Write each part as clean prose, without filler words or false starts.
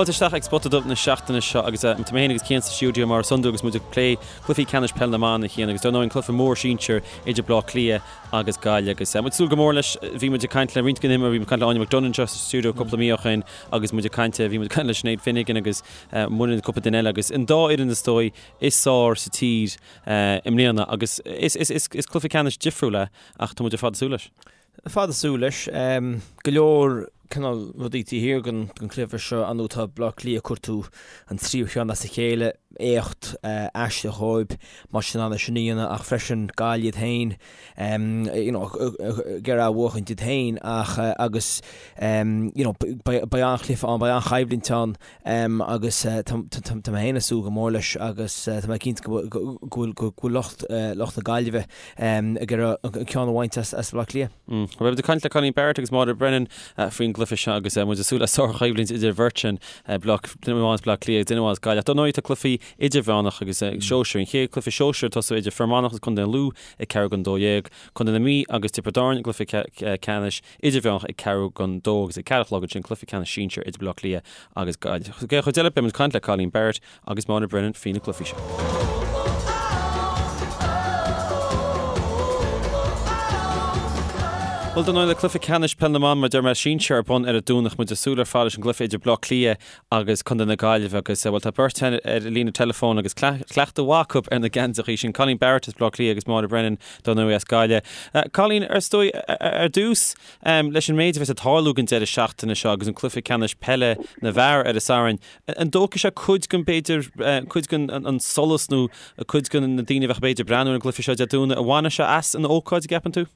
Fáilte isteach ag Spota Dubh na seachtaine seo agus tá mé féin agus Cian sa stiúideo mar is iondúil agus muid ag plé cluichí ceannais peil na mban a Chian agus dar ndóigh an cluiche mór sinsir idir Bleá Cliath agus Gaillimh agus muid ag súil go mór leis. Bhí muid ag caint le roinnt den imreoirí, bhí muid ag caint le Áine McDonagh anseo sa stiúideo cúpla mí ó shin agus muid ag caint, bhí muid ag caint le Sinéad Finnegan agus Muireann cúpla duine eile agus an dá fhoireann is dóigh is fearr sa tír i mbliana agus is cluiche ceannais difriúil é ach tá muid ar fad ag súil leis. Fad ag súil leis. Go leor cineál rudaí taobh thiar den chluiche seo, ar ndóigh tá Bleá Cliath ag cuartú an tríú cheann as a chéile, éacht aisteach dhóibh má tá siad in ann é sin a dhéanamh ach freisin Gaillimh iad féin you know ag iarraidh a bhuachaint iad féin ach agus you know beidh an-chluiche ann, beidh an-choimhlint ann. Agus tá mé féin ag súil go mór leis agus tá mé cinnte go bhfuil lucht na Gaillimhe ag iarraidh an ceann a bhaint as Baile Átha Cliath. Beidh muid ag caint le Colleen Barrett agus Máire Brennan faoin gcluiche seo agus muid ag súil le sárchoimhlint idir an bheirt sin, duine amháin as Baile Átha Cliath agus duine amháin as Gaillimh. Ach dar ndóigh tá cluichí idirmheánach agus sóisir. An chéad cluiche sóisir ag tosú idir Fear Manach agus Contae an Lú ag ceathrú don 12, Contae na Mí agus Tiobraid Árann i gcluiche ceannais Idirmheánach ag ceathrú don dó agus ag ceathair a chlog ansin cluiche ceannais sinsir idir Baile Átha Cliath agus Gaillimh. Sa gcéad chuid eile beidh muid ag caint le Colleen Barrett agus Máire Brennan faoi na cluichí seo. Bhuel, dar ndóigh le cluiche ceannais peil na mban mar deir mé sinsir ar bun ar an Domhnach muid ag súil ar fad leis an gcluiche idir Baile Átha Cliath agus Contae na Gaillimhe agus, bhuel, tá beirt ar an líne teileafóin agus cleachtadh mhaith acu ar na geansachaí sin, Colleen Barrett as Baile Átha Cliath agus Máire Brennan, dar ndóigh, as Gaillimh. Colleen, ar ndóigh, ar dtús, leis an méid a bheas ag tarlú ag an deireadh seachtaine seo agus an cluiche ceannais peile na bhfear ar an Satharn, an dtógfaidh sé cuid den, b'fhéidir, cuid den an solas nó cuid den na daoine a bheadh, b'fhéidir, ag breathnú ar an gcluiche seo Dé Domhnaigh, an mbainfidh sé as an ócáid, an gceapann tú?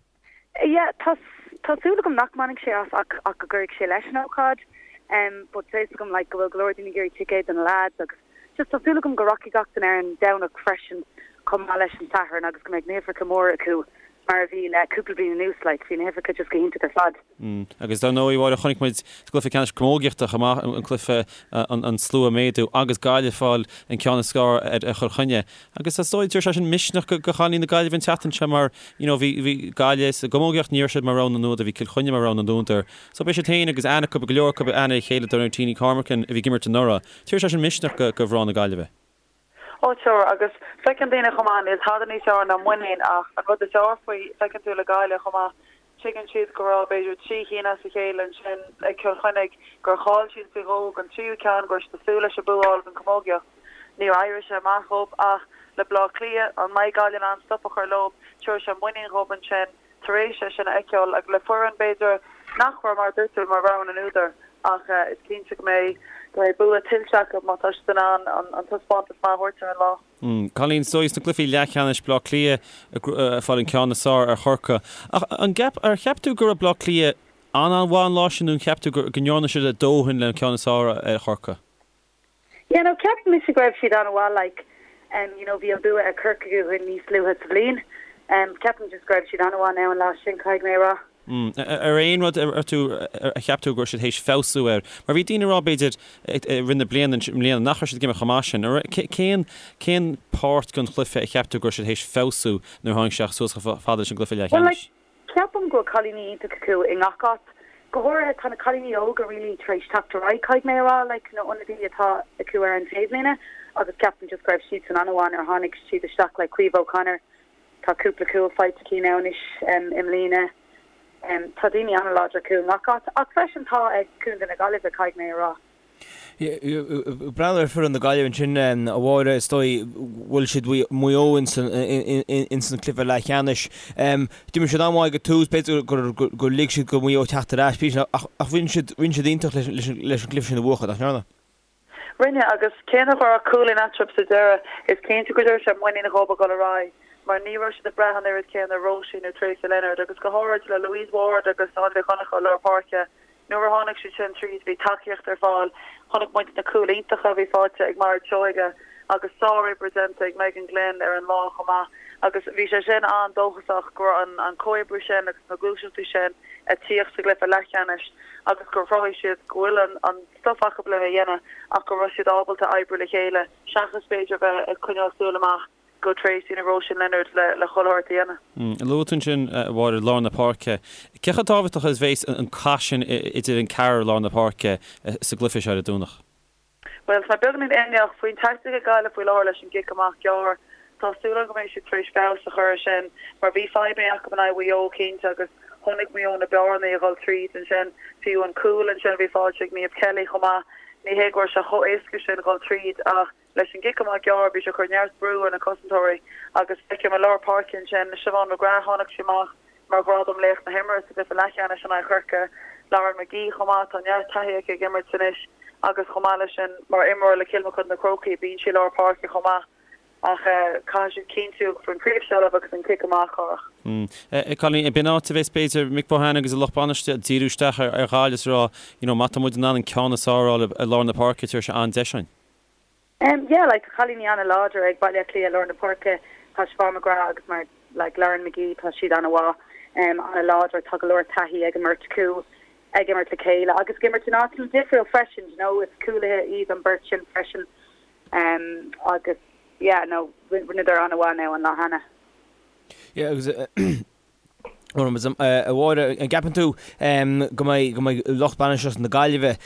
Yeah, tá tá súil agam nach mbainfidh sé as ach ach go gcuirfidh sé leis an ócáid. Em, but tá fhios agam like go bhfuil go leor daoine ag iarraidh ticéid do na lads agus just tá súil agam go rachaidh gach duine ar an Domhnach freisin chomh maith leis an Satharn agus go mbeidh na huimhreacha móra acu mar a bhí le cúpla bliain anuas like bhí na huimhreacha just go hiontach ar fad. Mm. Agus dar ndóigh, a Mháire, chonaic muid sa gcluiche ceannais camógaíochta chomh maith, an cluiche, an slua ag méadú agus Gaillimh ag fáil an ceann is fearr ar Chill Chainnigh. Agus is dóigh, tabharfaidh sé sin misneach do chailíní na Gaillimhe an tseachtain seo mar, you know, bhí, bhí Gaillimh sa gcamógaíocht, ní raibh siad mar rogha na n-údar, bhí Cill Chainnigh mar rogha na n-údar. So beidh siad féin agus aithne acu, go leor acu aithne ar a chéile, dar ndóigh Tini Cormican a bhí ag imirt anuraidh. Tabharfaidh sé sin misneach do, do mhná na Gaillimhe. Ó sure, agus feiceann daoine chomh maith, níl tada níos fearr ná muinín ach an rud is fearr faoi, feiceann tú le Gaillimh chomh maith, tuigeann siad go raibh b'fhéidir 3 chinn as a chéile ansin ag Cill Chainnigh, gur chaill siad faoi dhó don tríú ceann, go raibh siad ag súil leis an bua a fháil don chamógaíocht. Níor éirigh sé amach dhób ach le Bleá Cliath, an mbeidh Gaillimh in ann stop a chur leob, tabharfaidh sé muinín dhób ansin. tar éis é sin a fheiceáil le foireann, b'fhéidir, nach raibh, mar a dúirt tú, mar rogha na n-údar ach is cinnte go mbeidh go mbeidh bua tuillte acu má tá siad in ann an taispeántas maith a thabhairt ar an lá. Colleen, is dóigh sna cluichí leathcheannais, Bleá Cliath ag fáil an ceann is fearr ar Chorcaigh. Ach an gceap, ar cheap tú go raibh Bleá Cliath an-an-mhaith an lá sin nó an cheap tú go ndearna siad a ndóthain le an ceann is fearr ar Chorcaigh? Yeah no cheap mise go raibh siad an-mhaith like em you know bhí an bua ag Corcaigh uathu níos luaithe sa bhliain em ceapaim just go raibh siad an-mhaith now an lá sin caithfidh mé a rá. Mm. Ar aon rud ar tú a cheap tú go raibh siad théis feabhsú air? Mar bhí daoine ag rá b'fhéidir i rith na bliana i mbliana nach raibh siad ag imirt chomh maith sin. Cén cén páirt den chluiche a cheap tú go raibh siad théis feabhsú nuair a tháinig sé suas chomh fada leis an gcluiche Well like leathcheannais? Ceapaim go bhfuil cailíní iontach acu i ngach áit. Go háirithe tá na cailíní óga really tar éis teacht ar aghaidh, caithfidh mé a rá, like na ionadaí atá acu ar an taobhlíne agus ceapaim just go raibh siadsan an-mhaith nuair a tháinig siad isteach like Caoimhe O'Connor, tá cúpla cúl faighte aici now anois i mbliana. Tá daoine an-láidir acu i ngach áit ach freisin tá ag Contae na Gaillimhe, caithfidh mé a rá. Breathnú ar foireann na Gaillimhe ansin, a Mháire, is dóigh bhuail siad Maigh Eo ins an cluiche leathcheannais. D'imir siad an-mhaith ag an tús, b'fhéidir gur lig siad do Mhaigh Eo teacht ar ais píosa ach rinne siad rinne siad iontach leis an gcluiche sin a bhuachan, nach ndearna? Rinne, agus cé nach raibh ach cúilín eatarthu sa deireadh, is cinnte go dtabharfaidh sé muinín dhóibh a dhul ar aghaidh mar ní raibh siad ag brath an oiread céanna ar Róisín nó Tracey Leonard agus go háirid le Louise Ward agus Áine Mhic Dhonncha i lár páirce. Nuair a tháinig siad sin tríd, bhí tacaíocht ar fáil. Chonaic muid na cúil iontacha a bhí faighte ag Mairéad Seoige agus sároibre déanta ag Megan Glynn ar an lá chomh maith agus bhí sé sin an-dóchasach go raibh an comhoibriú sin agus na gluaiseachtaí sin ag tíocht sa gcluiche leathcheannais agus gur chruthaigh siad go bhfuil an stuif acu le dhéanamh ach go raibh siad ábalta oibriú le chéile seachas b'fhéidir bheith ag coinneáil súil amach go Tracey nó Róisín Leonard le chuile shórt a dhéanamh. Luaigh tú ansin, a Mháire, lár na páirce. Cé chomh tábhachtach is a bheas an cath sin idir an ceathrar lár na páirce sa gcluiche seo ar an Domhnach? Bhuel, tá mé beagáinín imníoch faoin teaictic ag Gaillimh faoi láthair leis an gcic amach gearr. Tá súil agam go mbeidh siad tar éis feabhas a chur air sin mar bhí fadhbanna acu in aghaidh Mhaigh Eo cinnte agus chonaic Maigh Eo na bearnaí a dhul tríd ansin, fiú an cúl ansin a bhí faighte ag Niamh Kelly chomh maith. Ní hé go raibh sé chomh éasca sin dhul tríd ach leis an gcic amach gearr bhí sé ag cur neart brú ar na cosantóirí agus feicim i lár páirce ansin Siobhán McGrath tháinig sí amach mar ghradam Laoch na hImeartha sa gcluiche leathcheannais in aghaidh Chorcaí. Lauren McGee chomh maith, tá neart taithí aici ag imirt anois agus chomh maith leis sin mar imreoir le Cill Mochuda na Crócaigh bíonn sí i lár páirce chomh maith ach caithfidh siad cinntiú faoin príomhsheilbh agus an cic amach, Cárthach. Colleen, b'in áit a bheas b'fhéidir Mick Bohan agus a lucht bainistithe ag díriú isteach ar Ghaillimh is a rá you know má tá muid in ann an ceann is fearr a fháil i lár na páirce tabharfaidh sé an-deis dúinn. Em yeah like tá cailíní an-láidir ag Baile Átha Cliath i lár na páirce, tá Siobhán McGrath agus mar like Lauren McGee tá siad an-mhaith, em an-láidir, tá go leor taithí ag an mbeirt acu ag imirt le chéile agus ag imirt in áiteanna difriúil freisin, you know is cúlaithe iad an beirt sin freisin em agus yeah no rinneadar an-mhaith now an lá cheana. Yeah agus A Mháire, an gceapann tú go mbeidh, go mbeidh lucht bainistíochta na Gaillimhe,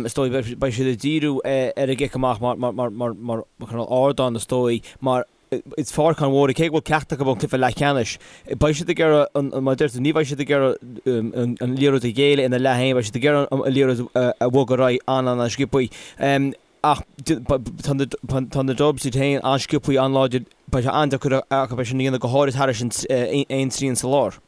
is dóigh, beidh siad ag díriú ar an gcic amach mar, mar, mar, mar, mar cineál ardán, is dóigh, mar is páirc an-mhór í, cé go bhfuil cleachtadh acu ón cluiche leathcheannais, beidh siad ag iarraidh an, mar a deir tú, ní bheidh siad ag iarraidh an liathróid a ghéilleadh ina leath féin, beidh siad ag iarraidh an liathróid a bhogadh ar aghaidh an-an-sciobthaí. Ach tá na Dubs iad féin an-sciobthaí, an-láidir. Beidh sé an-deacair acu é sin a dhéanamh, go háirid thairis an aon trian sa lár.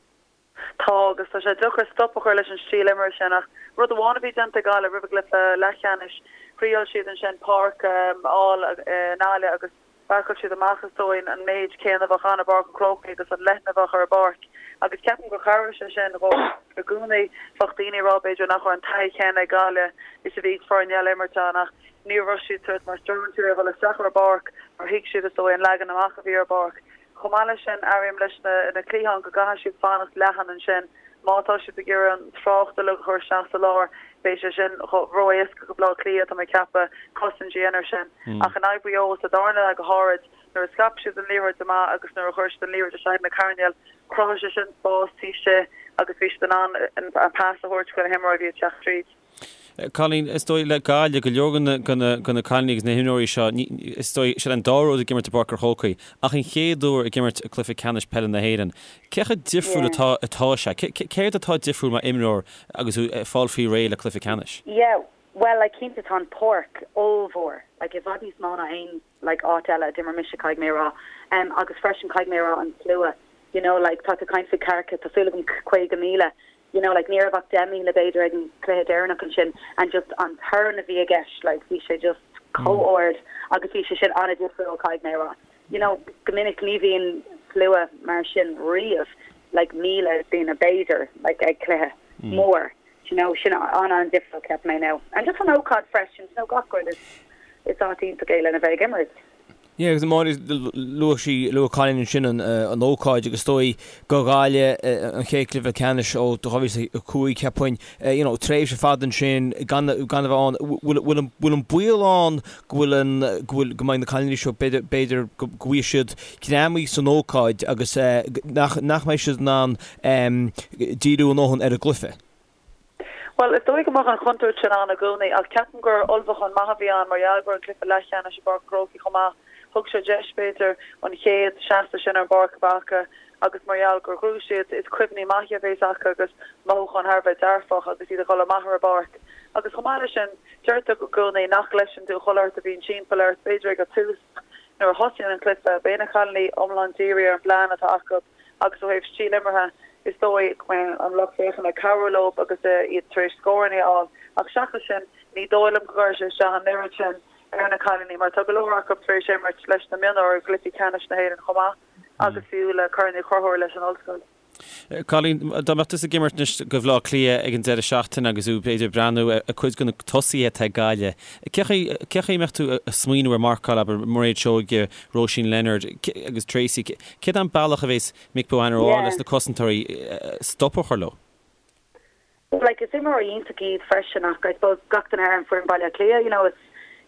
Tá, agus tá sé deacair stop a chur leis an stíl imeartha sin. Ach rud amháin a bhí déanta ag Gaillimh roimh an gcluiche leathcheannais, thriail siad ansin páirc a fháil i nGaillimh agus Mharcáil siad amach, is dóigh, an méid céanna a bheadh ann i bPáirc an Chrócaigh agus an leithne a bheadh ar an bpáirc agus ceapaim gur chabhraigh sé sin dhóibh. I gcónaí bheadh daoine ag rá, b'fhéidir, nach raibh an taithí chéanna ag Gaillimh is a bhí ag foirne eile imirt ann ach ní raibh siad sórt mar strainséirí a dhul isteach ar an bpáirc mar thuig siad, is dóigh, an leagan amach a bhí ar an bpáirc. Chomh maith leis sin, airím leis na cliatháin go gcaithfidh siad fanacht leathan ansin. Má tá siad ag iarraidh an trácht uilig a chur isteach sa lár, beidh sé sin ró-éasca do Bhaile Átha Cliath, tá mé ag ceapadh, cosaint a dhéanamh air sin. Ach in aghaidh Mhaigh Eo, sa darna leath go háirid, nuair a scaip siad an liathróid amach agus nuair a chuir siad an liathróid isteach ag na coirnéil, chruthaigh sé sin spás taobh istigh agus bhí siad in ann an pas a thabhairt do na himreoirí a bhí ag teacht tríd. Colleen, is dóigh le Gaillimh, go leor de na cailíní agus na himreoirí seo, is dóigh, siad an dara huair ag imirt i bPáirc an Chrócaigh, ach an chéad uair ag imirt i gcluiche ceannais peile na hÉireann. Cé chomh difriúil atá atá sé? Céard atá difriúil mar imreoir agus tú ag fáil faoi réir le cluiche ceannais? Yeah, bhuel, like, cinnte tá an pháirc ollmhór, like, i bhfad níos mó ná aon, like, áit eile a d'imir mise, caithfidh mé a rá. Em, agus freisin, caithfidh mé a rá, an slua, you know, like, tá tú ag caint faoi ceathracha, tá súil agam 50,000, you know like ní raibh ach 10,000 b'fhéidir ag an cluiche deireanach ansin and just an torann a bhí i gceist like bhí sé just chomh ard agus bhí sé sin an-difriúil caithfidh mé a rá. You know go minic ní bhíonn slua mar sin riamh like 1,000 duine b'fhéidir like ag cluiche mór you know sin an-an-difriúil cheap mé now. And just an ócáid freisin you know gach rud is is áit iontach é lena bheith ag imirt. Yeah, agus Máire, luaigh sí, luaigh Colleen ansin an ócáid agus is dóigh do Ghaillimh an chéad cluiche ceannais ó 2005 cheapfainn, you know, tréimhse fada ansin gan gan a bheith ann. Bhfuil bhfuil an bhfuil an baol ann go bhfuil an go bhfuil go mbeidh na cailíní seo b'fhéidir b'fhéidir go go bhfaighidh siad greamaithe san ócáid agus nach nach mbeidh siad in ann díriú a ndóthain ar an gcluiche? Bhuel, is dóigh go mbeadh an chontúirt sin ann i gcónaí ach ceapaim gur ullmhúchán maith a bhí ann mar gheall go raibh an cluiche leathcheannais i bPáirc an Chrócaigh chomh maith. Thug sé deis, b'fhéidir, an chéad seasamh sin ar an bpáirc a bheith acu agus mar gheall gur ghnóthaigh siad, is cuimhní maithe a bheas acu agus mothúcháin thar a bheith dearfach agus iad ag dul amach ar an bpáirc. Agus chomh maith leis sin, deirtear i gcónaí nach gcloiseann tú chuile shórt a bhíonn timpeall ort, b'fhéidir ag an tús nuair a thosaíonn an cluiche, beidh na cailíní iomlán dírithe ar an bplean atá acu. Agus ó thaobh stíl imeartha, is dóigh go mbeidh an lucht féachana ag cabhrú leo agus iad tar éis scóranna a fháil. Ach seachas sin, ní dóigh liom go gcuirfidh sé isteach an oiread sin ar na cailíní mar tá go leor acu tar éis imirt leis na mionúir i gcluichí ceannais na hÉireann chomh maith agus fiú le Corn Uí Chonchúir leis an ollscoil. Colleen, dá mbeadh tusa ag imirt anois do Bhaile Átha Cliath ag an deireadh seachtaine agus tú b'fhéidir ag breathnú ar cuid de na tosaithe atá ag Gaillimh, cé chaoi a mbeadh tú ag smaoineamh ar marcáil, abair, Mairéad Seoige, Róisín Leonard agus Tracey, Céard é an bealach a bheas Mick Bohan ag rá leis na cosantóirí stop a chur leo? Like is imreoirí iontach iad freisin ach I suppose gach duine ar an foireann Baile Átha Cliath you know is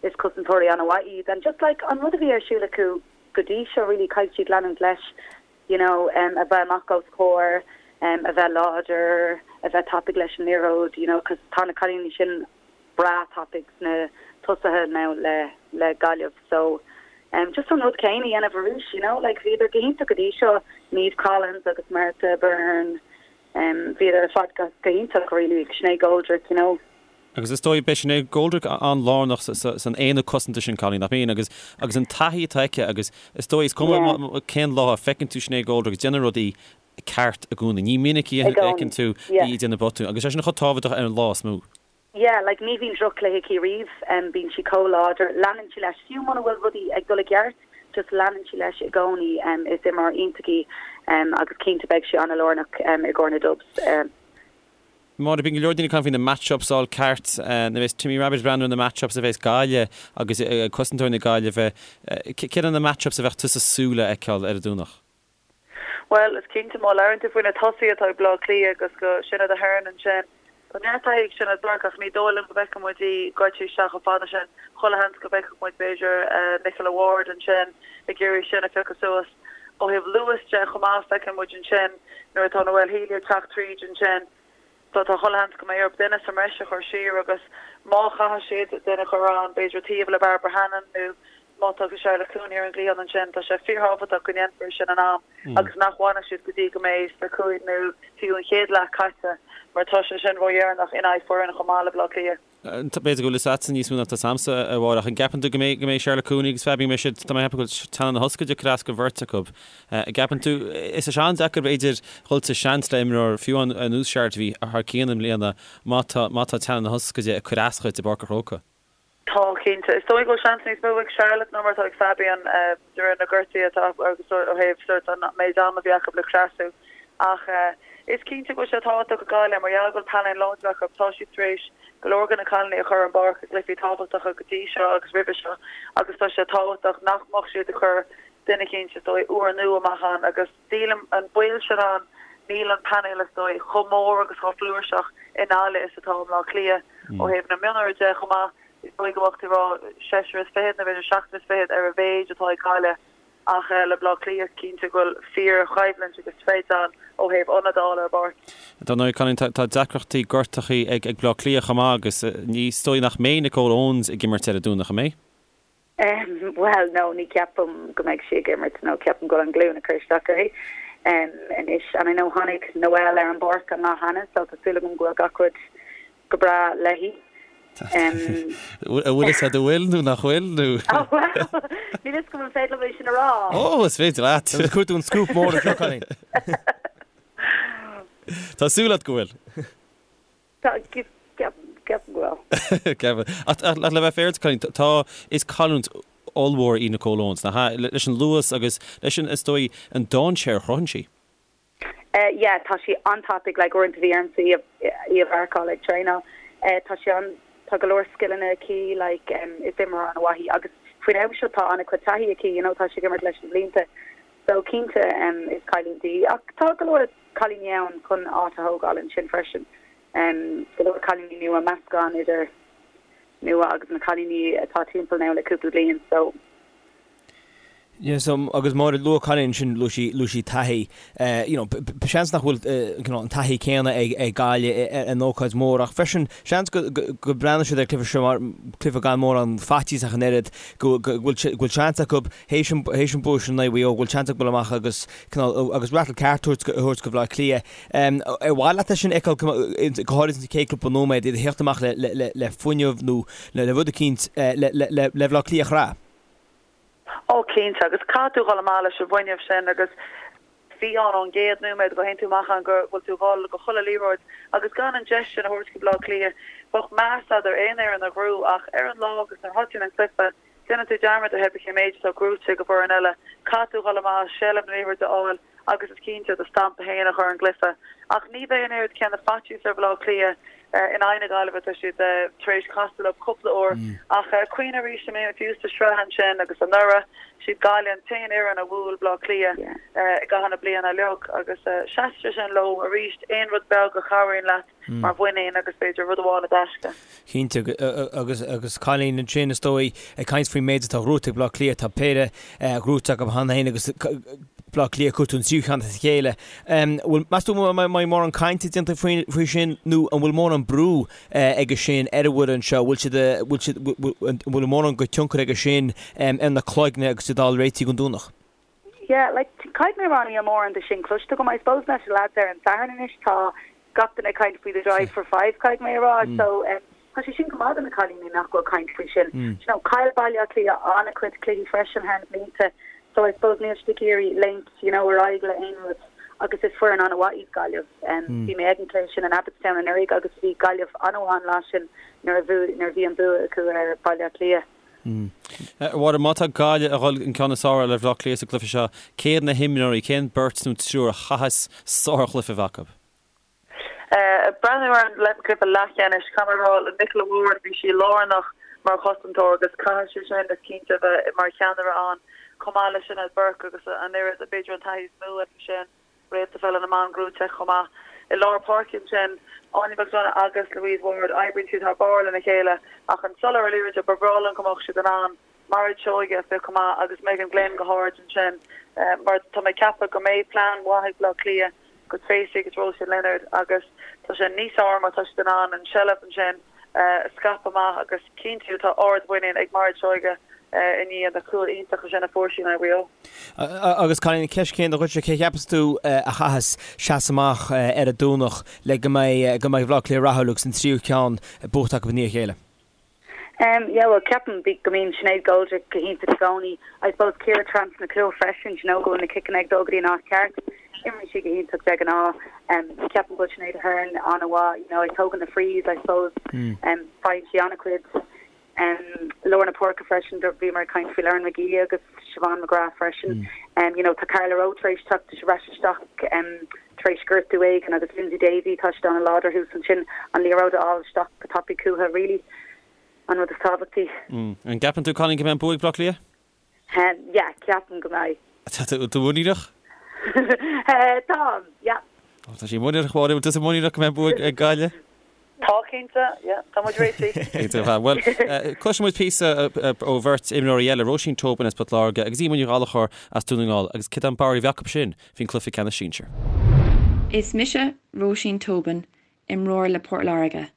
is cosantóirí an-mhaith iad and just like an rud a bhí ar siúl acu go dtí seo really caithfidh siad leanúint leis you know um, a bheith amach os comhair um, a bheith láidir a bheith tapaidh leis an liathróid you know cos tá na cailíní sin. breá tapaidh sna tosaithe now le le Gaillimh so em just an rud céanna a dhéanamh arís you know like bhíodar go hiontach go dtí seo Niamh Collins agus Martha Byrne em bhíodar ar fad go go hiontach really Sinéad Goldrick you know. Agus is dóigh, beidh Sinéad Goldrick an-lárnach san aonad cosanta sin, Colleen, nach mbíonn? Agus agus an taithí atá aici agus is dóigh, is cuma cén lá a feiceann tú Sinéad Goldrick ag déanamh rudaí ceart i gcónaí. Ní minic a fheiceann tú í ag déanamh botún agus sé sin chomh tábhachtach ar an lá is mó. Yeah, like ní bhíonn droch-chluiche aici riamh, bíonn sí chomh láidir, leanann sí leis, fiú muna bhfuil rudaí ag dul i gceart, just leanann sí leis i gcónaí, is imreoir iontach í agus cinnte beidh sí an-lárnach i gcomhair na Dubs. Máire, bíonn go leor daoine ag caint faoi na match-ups a fháil ceart. Nuair a bheas Timmy Rabbitte ag breathnú ar na match-ups a bheas Gaillimh agus cosantóirí na Gaillimhe, céard iad na match-ups a bheadh tusa ag súil le feiceáil ar an Domhnach? Bhuel, is cinnte má labhrann tú faoi na tosaithe atá ag Bleá Cliath agus go Sinéad Aherne ansin, tá neart taithí ag Sinéad Burke ach ní dóigh liom go bhfeicfidh muid í gaibhte isteach chomh fada sin. Chuile sheans go bhfeicfeadh muid b'fhéidir Nicola Ward ansin ag iarraidh sin a phiocadh suas. Ó thaobh luas de chomh maith, feiceann muid ansin nuair atá Noelle Healy ag teacht tríd ansin, tá tá chuile sheans go mbeidh orthu duine sa mbreis a chur siar agus má chaithfidh siad duine a chur ann, b'fhéidir taobh le Barbara Hannon nó má tá Charlotte Cooney ar an gcliathán ansin, tá sé fíorthábhachtach go ndéanfar é sin in am agus nach bhfanfaidh siad go dtí go mbeidh na cúig nó fiú an chéad leath caite mar tá sé sin ródheireanach in aghaidh foireann chomh maith le Baile Átha Cliath. B'fhéidir go bhfuil fhios agatsa níos mó ná tá fhios a'msa, a Mháire, ach an gceapann tú go mbeidh, go mbeidh Charlotte Cooney agus Fabian, go mbeidh siad, tá mé ag ceapadh go bhfuil teannán na hioscaide ag cur as don bheirt acu. An gceapann tú, is é seo an-deacair b'fhéidir dhul sa seans le imreoir, fiú ar nós Charlotte a bhí thar cionn i mbliana, má tá, má tá teannán na hioscaide ag cur as dhuit i bPáirc an Chrócaigh. Tá, cinnte. Is dóigh go bhfuil seans níos mó ag Charlotte ná mar atá ag Fabian de réir na gortuithe atá agus ó thaobh sort an méid ama a bhí acu le creasadh. Ach is cinnte go bhfuil sé tábhachtach do Ghaillimh mar gheall go bhfuil painéal láidir acu. Tá siad tar éis go leor de na cailíní a chur ar an bpáirc i gcluichí tábhachtacha go dtí seo agus roimhe seo agus tá sé tábhachtach nach mbeadh siad ag cur duine eicínt is dóigh úrnua amach ann agus sílim an baol sin ann níl an painéal is dóigh chomh mór agus chomh flúirseach i nGaillimh is atá i mBleá Cliath ó thaobh na mionúir de chomh maith is dóigh go mbeadh tú ag rá seisear is fichead nó b'fhéidir seachtar is fichead ar a mhéid atá ag Gaillimh Ach le Bleá Cliath, is cinnte go bhfuil fíor-choimhlint agus troid ann ó thaobh ionad a fháil ar an bpáirc. Dar ndóigh, Colleen, tá deacrachtaí gortachaí ag Bleá Cliath chomh maith agus ní is dóigh nach mbeidh Nicole Owens ag imirt ar an Domhnach, an mbeidh? Bhuel, no, ní ceapaim go mbeidh sí ag imirt, no, ceapaim go bhfuil an glún ag cur isteach uirthi anois. And I know tháinig Noelle ar an bpáirc an lá cheana so tá súil agam go bhfuil gach rud go breá léi. An bhfuil fhios agat an bhfuil nó nach bhfuil nó? Ó bhuel, níl fhios agam an féidir liom é sin a rá. Ó, is féidir leat. Chuir tú an scúp mór anseo, Colleen. Tá súil agat go bhfuil. Tá, ceapaim go bhfuil. Ceapaim. Ach le bheith féaráilte, Colleen, tá, is cailliúint ollmhór í Nicole Owens, nach ea? Leis an luas agus leis an, is dóigh, an dainséar a chruthaíonn sí. Yeah, tá sí an-tapaidh, like uaireanta bhí ormsa í í a mharcáil ag traenáil. Tá sí an, tá go leor scileanna aici, like is imreoir an-mhaith í agus faoin am seo tá an-chuid taithí aici, you know, tá sí ag imirt leis na blianta. So cinnte is cailliúint í ach tá go leor cailíní ann chun áit a thógáil ansin freisin. Go leor cailíní nua, meascán idir nua agus na cailíní atá timpeall now le cúpla bliain so. Yes, agus mar a luaigh Colleen ansin, luaigh sí, luaigh sí taithí. You know, seans nach bhfuil you know, an taithí céanna ag, ag Gaillimh ar an ócáid mhór ach freisin seans go, go, go mbreathnóidh siad ar an cluiche seo mar cluiche gan mórán faitíos ach an oiread, go, go, go bhfuil, go bhfuil seans acu théis an, théis an bua sin in aghaidh Mhaigh Eo, go bhfuil seans acu dul amach agus cineál, agus rattle ceart a thabhairt, a thabhairt go Bhaile Átha Cliath. Ar mhaith leat é sin a fheiceáil, go háirid sa chéad cúpla nóiméad, iad a theacht amach le, le, le, le fuinneamh nó le, le rud eicínt le, le, le, le Baile Átha Cliath a chrá? Ó cinnte, agus caithfidh tú dhul amach leis an bhfuinneamh sin agus bhí ann ón gcéad nóiméad go théann tú amach ann go bhfuil tú ag dhul go chuile liathróid agus gan an deis sin a thabhairt go Baile Átha Cliath. Bheadh meas agat ar aon fhoireann a ghnóthú ach ar an lá agus nuair a thosaíonn an cluiche, déanann tú dearmad ar pé cén méid atá gnóthaithe ag an bhfoireann eile. Caithfidh tú dhul amach, seilbh na liathróide a fháil agus is cinnte do stampa féin a chur ar an gcluiche. Ach ní bheidh an oiread céanna faitíos ar Bhaile Átha Cliath in aghaidh na Gaillimhe, tá siad tar éis casadh leo cúpla uair. Ach cuimhnigh arís i mbliana, fiú sa sraith ansin agus anuraidh, siad Gaillimh an t-aon fhoireann a bhuail Baile Átha Cliath i gcaitheamh na bliana uilig agus seasfaidh sé sin leo arís, aon rud beag a chabhraíonn leat mar mhuinín agus b'fhéidir rud amháin i dtaisce. Cinnte, agus agus Colleen ansin is dóigh ag caint faoin méid atá gnóthaithe ag Baile Átha Cliath, tá péire gnóthaithe acu cheana féin agus. Bleá Cliath ag cuartú an tríú ceann as a chéile. Bhfuil, meas tú an mbeidh mórán cainte déanta faoi sin nó an bhfuil mórán brú aige sin ar an bhfoireann seo? Bhfuil siad, bhfuil siad, an bhfuil mórán de thionchar aige sin ar na cloigne agus iad ag dul réitithe don Domhnach? Yeah, like, caithfidh mé a rá níl mórán de sin cloiste agam. I suppose leis na lads ar an Satharn anois tá gach duine ag caint faoi the drive for five, caithfidh mé a rá. So, um, tá sé sin go maith do na cailíní nach bhfuil caint faoi sin. You know, chaill Baile Átha Cliath an-chuid cluichí freisin thar na blianta. So I suppose níl siad ag iarraidh léimt, you know, ar aghaidh le aon rud. Agus is foireann an-mhaith iad Gaillimh. Um, bhí mé ag an cluiche sin in Abbotstown anuraidh agus bhí Gaillimh an-mhaith an lá sin nuair a bhuaigh, nuair a bhí an bua acu ar Baile Átha Cliath. A Mháire, má tá Gaillimh a dhul an ceann is fearr a fháil ar Bhaile Átha Cliath sa gcluiche seo, céard na himreoirí, cén beirt nó triúr a chaithfeas sárchluiche a bheith acu? Ag breathnú ar an gcluiche leathcheannais, caithfidh mé a rá, le Nicola Ward, bhí sí lárnach mar chosantóir agus caithfidh sí sin, is cinnte, a bheith mar cheannaire ann, chomh maith le Sinéad Burke agus an oiread, b'fhéidir an taithí is mó aici sin. Réalta Pheile na mBan gnóite aici chomh maith. I lár páirce ansin, Áine McDonagh agus Louise Ward, oibríonn siad thar barr lena chéile ach ansan ar an liathróid ba bhreá liom go mbeadh siad in ann Mairéad Seoige a phiocadh amach agus Megan Glynn go háirid ansin mar tá mé ag ceapadh go mbeidh plean mhaith ag Bleá Cliath go Tracey agus Róisín Leonard agus tá sé níos fearr má tá siad in ann an seilbh ansin a scaipeadh amach agus cinntiú tá ard-mhuinín ag Mairéad Seoige i ndiaidh na cúil iontacha sin a fuair sí in aghaidh Mhaigh Eo. Agus Colleen, ceist chéanna dhuitse, cé cheapas tú a chaithfeas seasamh amach ar an Domhnach le go mbeidh go mbeidh Bhaile Átha Cliath rathúil agus an tríú ceann buachta acu i ndiaidh a chéile? Um yeah well ceapaim go mbíonn Sinéad Goldrick go hiontach i gcónaí. I suppose Ciara Trant sna cúil freisin, you know go bhfuil na ciceanna ag dul go dtí an áit ceart. Imríonn sí go hiontach de ghnáth. Um ceapaim go bhfuil Sinéad Aherne an-mhaith, you know ag tógaint na frees I suppose. Um faigheann sí an-chuid Um lár na páirce freisin, bhíomar ag caint faoi Lauren McGee agus Siobhán McGrath freisin. Um you know tá Carla Rowe tar éis teacht ar ais isteach um tar éis gortú éigin agus Lyndsey Davey tá siad an-láidir thuas ansin an liathróid a fháil isteach go tapaidh chucu really an rud is tábhachtaí. An gceapann tú Colleen go mbeidh an bua ag Bleá Cliath? Yeah, ceapaim go mbeidh. Tá tú muiníneach? Táim, yeah. Tá sí muiníneach, a Mháire, bhfuil tusa muiníneach go mbeidh an bua ag Gaillimh? Tá, cinnte, yeah, tá muid réitithe. Cinnte, bhuel, cloisfidh muid píosa ó bheirt imreoirí eile, Róisín Tobin as Port Láirge agus Eimear Ní Ghallchóir as Dún na nGall, agus cad é an barúil a bhí acu sin faoin cluiche ceannais sinsir. Is mise Róisín Tobin, imreoir le Port Láirge.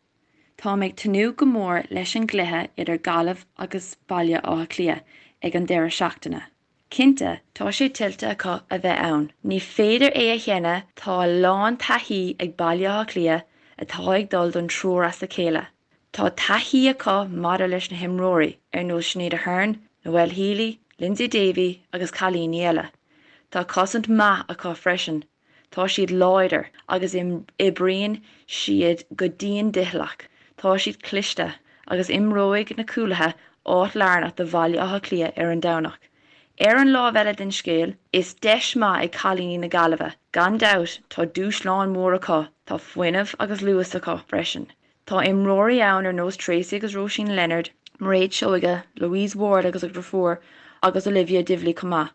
Táim ag tnúth go mór leis an gcluiche idir Gaillimh agus Baile Átha Cliath ag an deireadh seachtaine. Cinnte, tá sé tuillte acu a bheith ann. Ní féidir é a shéanadh, tá a lán taithí ag Baile Átha Cliath atá ag dul don triúr as a chéile. Tá taithí acu maidir leis na himreoirí ar nós Sinéad Aherne, Noelle Healy, Lyndsey Davey agus cailíní eile. Tá cosaint maith acu freisin. Tá siad láidir agus oibríonn siad go dian dicheallach. Tá siad cliste agus imreoidh na cúlaithe áit lárnach do Bhaile Átha Cliath ar an Domhnach. Ar an lámh eile den scéal, is deis maith ag cailíní na Gaillimhe. Gan dabht, tá dúshlán mór acu, tá fuinneamh agus luas acu freisin. Tá imreoirí ann ar nós Tracey agus Róisín Leonard, Mairéad Seoige, Louise Ward agus a deirfiúr agus Olivia Divilly chomh maith.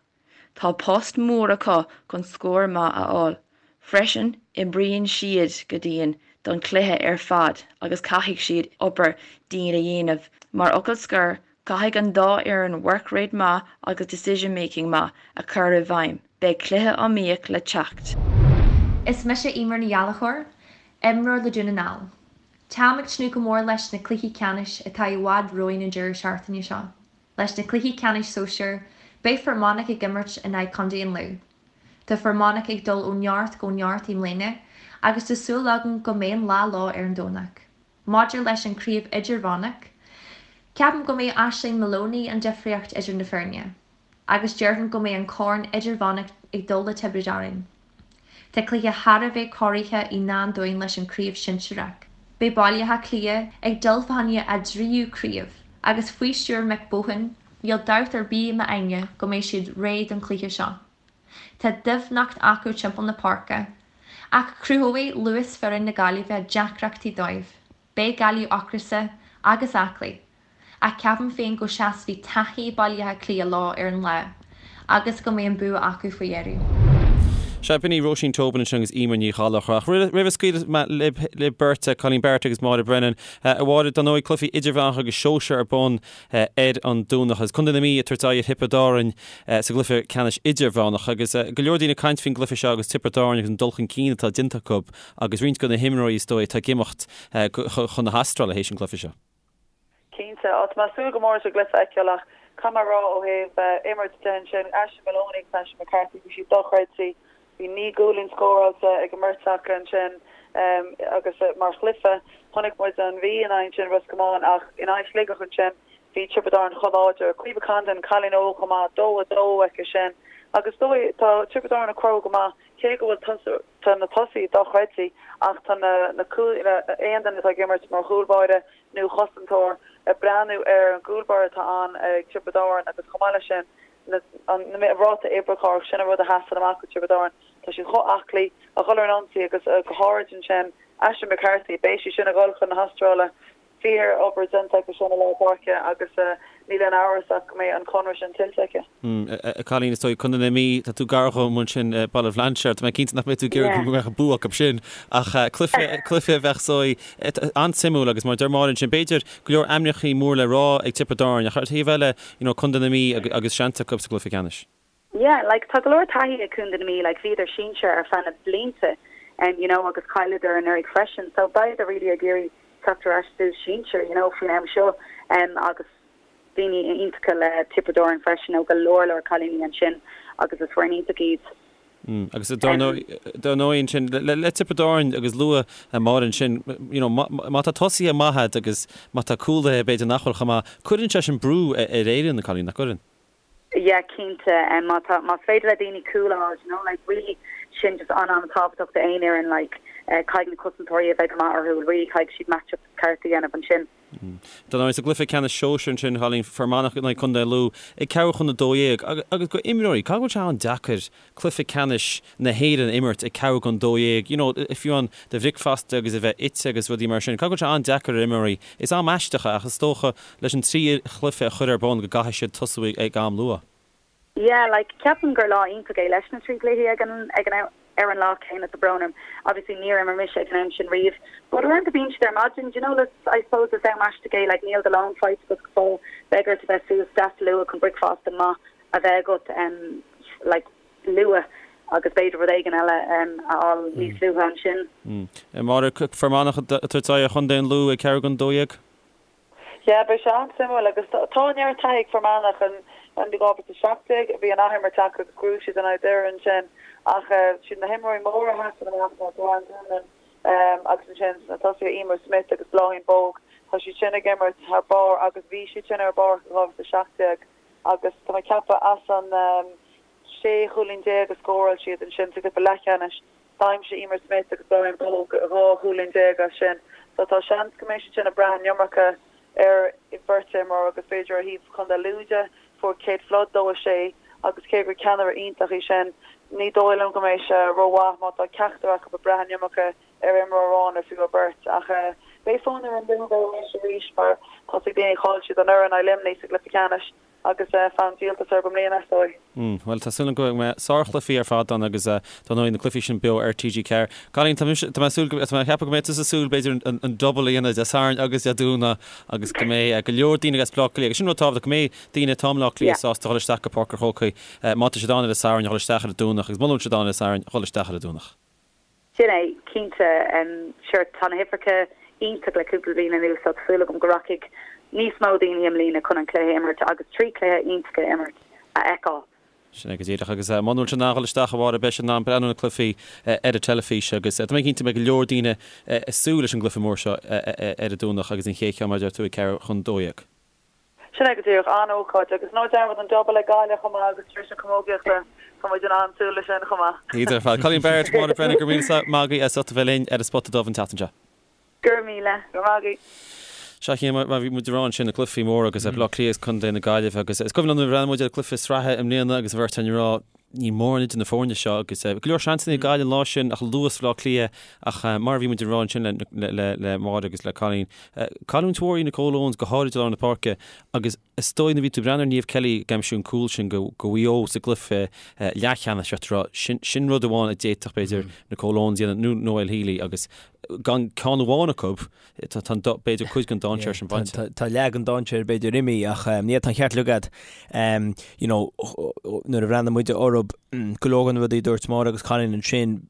Tá post mór acu chun scór maith a fháil. Freisin, oibríonn siad go dian don chluiche ar fad agus caithfidh siad obair dian a dhéanamh. Mar fhocal scoir, caithfidh an dá fhoireann work rate maith agus decision making maith a chur i bhfeidhm. Beidh cluiche iomaíoch le teacht. Is mise Eimear Ní Ghallchóir, imreoir le Dún na nGall. Táim ag tnúth go mór leis na cluichí ceannais atá i bhfad romhainn an deireadh seachtaine seo. Leis na cluichí ceannais sóisir, beidh Fear Manach ag imirt in aghaidh Contae an Lú. Tá Fear Manach ag dul ó neart go neart i mbliana agus tá súil agam go mbeidh an lá leo ar an Domhnach. Maidir leis an craobh idirmheánach, ceapaim go mbeidh Aisling Moloney an difríocht idir na foirne. Agus déarfainn go mbeidh an corn idirmheánach ag dul le Tiobraid Árann. Tá cluiche thar a bheith corraithe i ndán dúinn leis an craobh sinsearach. Beidh Baile Átha Cliath ag dul fá choinne a dtríú craobh agus faoi stiúir Mick Bohan níl dabht ar bith i m'aigne go mbeidh siad réidh don chluiche seo. Tá doimhneacht acu timpeall na páirce ach cruthóidh luas foireann na Gaillimhe deacrachtaí dóibh. Beidh Gaillimh ocrasach agus aclaí ach ceapaim féin go seasfaidh taithí Baile Átha Cliath leo ar an lá agus go mbeidh an bua acu faoi dheireadh. Sea, b'in í Róisín Tobin ansin agus Eimear Ní Ghallchóir. Ach roimh a scaoilfidh mé libh beirt, Colleen Barrett agus Máire Brennan, a Mháire, dar ndóigh, cluichí idirmheánacha agus sóisir ar bun ar an Domhnach agus Contae na Mí ag tabhairt aghaidh ar Thiobraid Árann sa gcluiche ceannais idirmheánach. Agus go leor daoine ag caint faoin gcluiche seo agus Tiobraid Árann agus an dul chun cinn atá déanta acu agus roinnt de na himreoirí is dóigh atá ag imeacht chun na hAstráile théis an gcluiche seo. Cinnte. Á, tá mé ag súil go mór leis an gcluiche a fheiceáil ach caithfidh mé a rá ó thaobh imirt de ansin, Aisling Moloney agus Aisling McCarthy, bhí siad dochreidte. Bhí 9 gcúilín scóráilte ag an mbeirt acu ansin agus mar chluiche, chonaic muid an Mhí in aghaidh ansin Ros Comáin ach in aghaidh Shligeach ansin, bhí Tiobraid Árann chomh láidir. Caoimhe Condon, cailín óg chomh maith, 2 2 aici sin agus is dóigh tá Tiobraid Árann ag cruthú go maith cé go bhfuil tá na tosaithe dochreidte ach tá na na aon duine atá ag imirt mar chúl báire nó chosantóir ag breathnú ar an gcúl báire atá ann ag Tiobraid Árann agus chomh maith leis sin na an ráta oibre Cárthach, sin an rud a sheasann amach do Tiobraid Árann. Tá siad chomh aclaí, a dhul ar an ionsaí agus go háirid ansin Aisling McCarthy, beidh sí sin ag dhul chun na hAstráile. Fíor obair déanta aici sin i lár páirce agus níl aon amhras ach go mbeidh an conradh sin tuillte aici. A Colleen, is dóigh, Contae na Mí, tá tú gar dhom ansin i Baile Bhlainséir, tá mé cinnte nach mbeidh tú ag iarraidh go mbeadh an bua acu sin ach cluiche, cluiche a bheadh is dóigh an-suimiúil agus mar a deir Máire ansin, b'fhéidir go leor ainmneacha mór le rá ag Tiobraid Árann ach ar an taobh eile, you know, Contae na Mí agus seans acu sa gcluiche ceannais. Yeah, like tá go leor taithí ag Contae na Mí, like bhíodar sinsir ar feadh na blianta um, you know, agus chailleadar anuraidh freisin, so beidh really ag iarraidh teacht ar ais suas sinsir, you know, faoin am seo um, agus daoine iontacha le Tiobraid Árann freisin, nó go leor leor cailíní ansin agus is foireann iontach iad. Mm, agus dar ndóigh ansin le Tiobraid Árann agus luaigh Máire ansin, you know, má tá tosaithe maith agat agus má tá cúlaithe b'fhéidir nach bhfuil chomh maith, cuireann sé sin brú ar fhoireann, a Colleen, nach gcuireann? Yeah, cinnte. Má tá, más féidir le daoine cúl a fháil, you know, like really sin just an-an-tábhachtach d'aon fhoireann, like caithfidh na cosantóirí a bheith go maith orthu, really caithfidh siad match-up ceart a dhéanamh ansin. Dar ndóigh, sa gcluiche ceannais sóisir ansin, Colleen, Fear Manach in aghaidh Contae Lú ag ceathrú chun 12 agus go imreoirí, caithfidh go bhfuil sé an-deacair cluiche ceannais na hÉireann a imirt ag ceathrú chun 12, you know, fiú amháin do bhricfeasta agus a bheith ite agus rudaí mar sin, caithfidh go bhfuil sé an-deacair ar imreoirí. Is am aisteach é ach is dócha leis an trí chluiche a chur ar bun go gcaithfidh siad tosú ag am luath. Yeah, like, ceapaim gur lá iontach é leis na trí chluichí ag an, ag an, ar an lá céanna, tá brón orm. Obviously níor imir mise ag an am sin riamh, but uaireanta bíonn siad ar maidin, do you know, le, I suppose is am aisteach é, like, níl do lón faighte agat go fóill, beidh ort a bheith suas deas luath chun bricfeasta maith a bheith agat, em, like, luath agus b'fhéidir rud éigin eile, em, a fháil níos luaithe ansin. Mm. Máire, Fear Manach ag tabhairt aghaidh ar Chontae an Lú ag ceathrú don 12? Yeah, beidh sé an-suimiúil agus tá neart taithí ag Fear Manach in 2017, bhí an athimirt acu agus ghnóthaigh siad in aghaidh Doire ansin ach siad na himreoirí móra a sheasann amach ná Joanne Doonan agus ansin sna tosaithe Emer Smith agus Bláithín Bogue, tá siad sin ag imirt thar barr agus bhí siad sin ar an bpáirc in 2017 agus tá mé ag ceapadh as an 16 chúilín a scóráil siad ansin sa gcluiche leathcheannais D'aimsigh Emer Smith agus Bláithín Bogue 12 chúilín as sin so tá seans go mbeidh siad sin ag brath an iomarca ar bheirt imreoir agus b'fhéidir ó thaobh Chontae Lú de, fuair Kate Flood 2 6 agus cé gur ceannaire iontach í sin, ní dóigh liom go mbeidh sé rómhaith má tá ceachtar acu ag brath an iomarca ar imreoir amháin nó fiú ar beirt. Ach beidh fonn ar an Lú bheith ar ais arís mar tá 's ag daoine chaill siad anuraidh in aghaidh Luimnigh sa gcluiche ceannais. Agus fonn díoltais orthu i mbliana, is dóigh. Bhuel, tá súil agam go mbeidh sárchluichí ar fad ann agus dar ndóigh na cluichí sin beo ar TG4. Colleen, tá mise, tá mé ag súil go, tá mé ag ceapadh go mbeidh tusa ag súil b'fhéidir an double a dhéanamh Dé Sathairn agus Dé Domhnaigh agus go mbeidh go leor daoine as Baile Átha Cliath, agus sin rud tábhachtach, go mbeidh daoine atá i mBleá Cliath sásta dhul isteach go Páirc an Chrócaigh má tá siad ann ar an Satharn, dhul isteach ar an Domhnach agus muna bhfuil siad ann ar an Satharn, dhul isteach ar an Domhnach. Sin é, cinnte. Sure, tá na huimhreacha iontach le cúpla bliain anuas so tá súil agam go rachaidh níos mó daoine i mbliana chun an cluiche a imirt agus trí chluiche iontacha a imirt a fheiceáil. Sin é go díreach. Agus muna bhfuil siad in ann dhul isteach a Mháire, beidh siad in ann breathnú ar na cluichí ar an teilifís agus tá mé cinnte go mbeidh go leor daoine ag súil leis an gcluiche mór seo ar an Domhnach agus an chéad cheann mar a deir tú ag ceathrú chun 12. Sin é go díreach, an-ócáid agus ná dearmad an double ag Gaillimh chomh maith agus tar éis na camógaíochta tá muid in ann súil leis sin chomh maith. Iad ar fad. Colleen Barrett, Máire Brennan, go raibh míle maith agaibh as ucht a bheith linn ar an Spota Dubh an tseachtain seo. Go raibh míle. Go raibh maith agaibh. Sea, Cian, mar bhí muid ag rá ansin, na cluichí móra agus Baile Átha Cliath agus Contae na Gaillimhe agus is cuimhin liom nuair a bhreathnaigh muid ar an gcluiche sraithe i mbliana agus an bheirt againn ag rá. Níl mórán idir na foirne seo agus go leor seansanna ag Gaillimh an lá sin ach luas Bhaile Átha Cliath ach mar a bhí muid ag rá ansin le Máire agus le Colleen, cailliúint mhór í Nicole Owens go háirid i lár na páirce agus is dóigh nuair a bhí tú ag breathnú ar Niamh Kelly ag aimsiú an cúl sin do Mhaigh Eo sa gcluiche leathcheannais bheadh tú ag rá sin sin rud amháin a d'fhéadfadh b'fhéidir Nicole Owens a dhéanamh nó Noelle Healy agus gan ceann amháin acu tá b'fhéidir cuid den dainséar sin bainte. Tá leath den dainséar b'fhéidir imithe ach yeah tá an ceart agat. You know nuair a bhreathnaigh muid orthu go leor de na rudaí a dúirt Máire agus Colleen ansin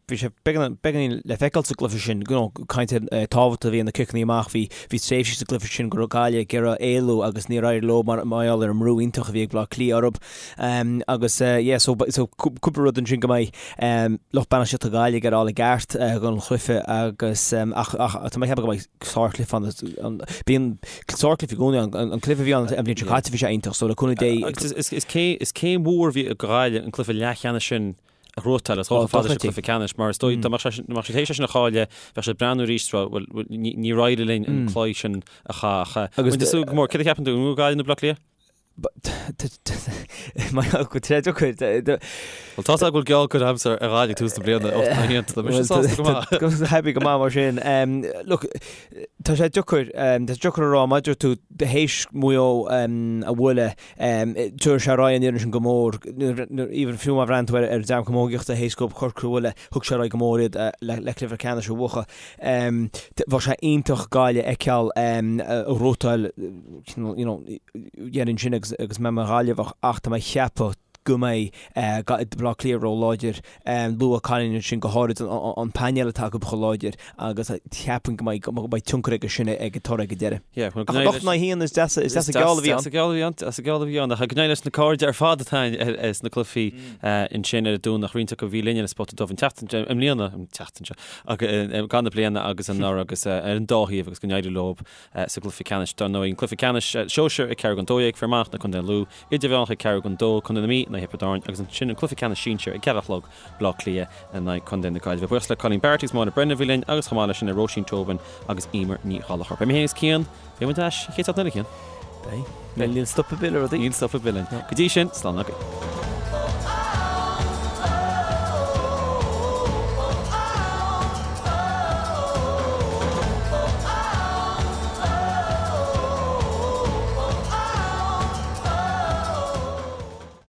bhí sé beagáinín le feiceáil sa gcluiche sin, you know caint ar tábhacht a bhí na ciceanna amach, bhí bhí tréimhsí sa gcluiche sin go raibh Gaillimh ag iarraidh éalú agus níor éirigh leo mar mar gheall ar an mbrú iontach a bhí ag Baile Átha Cliath orthu. Agus yeah so so cúpla rud ansin go mbeidh lucht bainistíochta Gaillimh ag iarraidh fháil i gceart don chluiche agus ach ach tá mé ag ceapadh go mbeidh sárchluiche ann. Bíonn sárchluiche i gcónaí ann. An cluiche a bhí ann an bhliain seo caite bhí sé iontach so le cúnamh Dé. Agus is is is céim mhór a bhí ag Gaillimh an cluiche leathcheannais sin a ghnóthachtáil agus dhul chomh fada leis an gcluiche ceannais mar is dóigh dá mbeadh sé dá mbeadh siad théis é sin a chailleadh bheadh siad ag breathnú arís ag rá bhuel níor éirigh linn an cluiche sin a chaith ach muid ag súil go mór. Céard a cheapann tú? An bhfuil Gaillimh nó Bleá Cliath? Go trédhearcach. Bhuel, tá a fhios agam go bhfuil geall curtha agamsa ar Ghaillimh ag tús na bliana, 8 in 1, tá mise sásta go maith. Go happy go maith mar sin. Look, tá sé deacair, tá sé deacair a rá mar a deir tú théis Maigh Eo a bhualadh, tabharfaidh sé ar aghaidh an fhoireann sin go mór, even fiú má bhreathnaíonn tú ar an dream camógaíochta théis dóibh Corcaigh a bhualadh, thug sé ar aghaidh go mór iad le cluiche ceannais a bhuachan. Bheadh sé iontach Gaillimh a fheiceáil a ghnóthachtáil you know, dhéanfainn sin agus agus mé i mo Ghaillimheach ach tá mé ag ceapadh go mbeidh Baile Átha Cliath ró-láidir. Luaigh Colleen ansin go háirid an painéal atá acu chomh láidir agus cheapfainn go mbeidh go mbeidh tionchar aige sin ag an toradh ag an deireadh. Yeah, Ach 8 in 1 is deas is deas an geall a bhí ann. Deas an geall a bhí ann, deas an geall a bhí ann. Ach go n-éirí leis na cairde ar fad atá sna cluichí ansin ar an Domhnach roinnt acu a bhí linn ar an Spota Dubh an tseachtain i mbliana, an tseachtain seo, ach i gcaitheamh na bliana agus anuraidh agus ar an dá thaobh agus go n-éirí leo sa gcluiche ceannais. Dar ndóigh, an cluiche ceannais sóisir ag ceathrú don 12, Fear Manach in aghaidh Contae Lú, Idirmheánach ag ceathrú don 2, Contae na Mí in aghaidh Thiobraid Árann agus ansin an cluiche ceannais sinsir ag ceathair a chlog, Baile Átha Cliath in aghaidh Contae na Gaillimhe. Buíochas le Colleen Barrett agus Máire Brennan a bhí linn agus chomh maith leis sin le Róisín Tobin agus Emer Ní Ghallchóir. Beidh mé féin agus Cian, beidh muid ar ais an chéad seachtain eile, Cian. Beidh. Níl stop ar bith le rudaí. Níl stop ar bith linn. Go dtí sin, slán agaibh.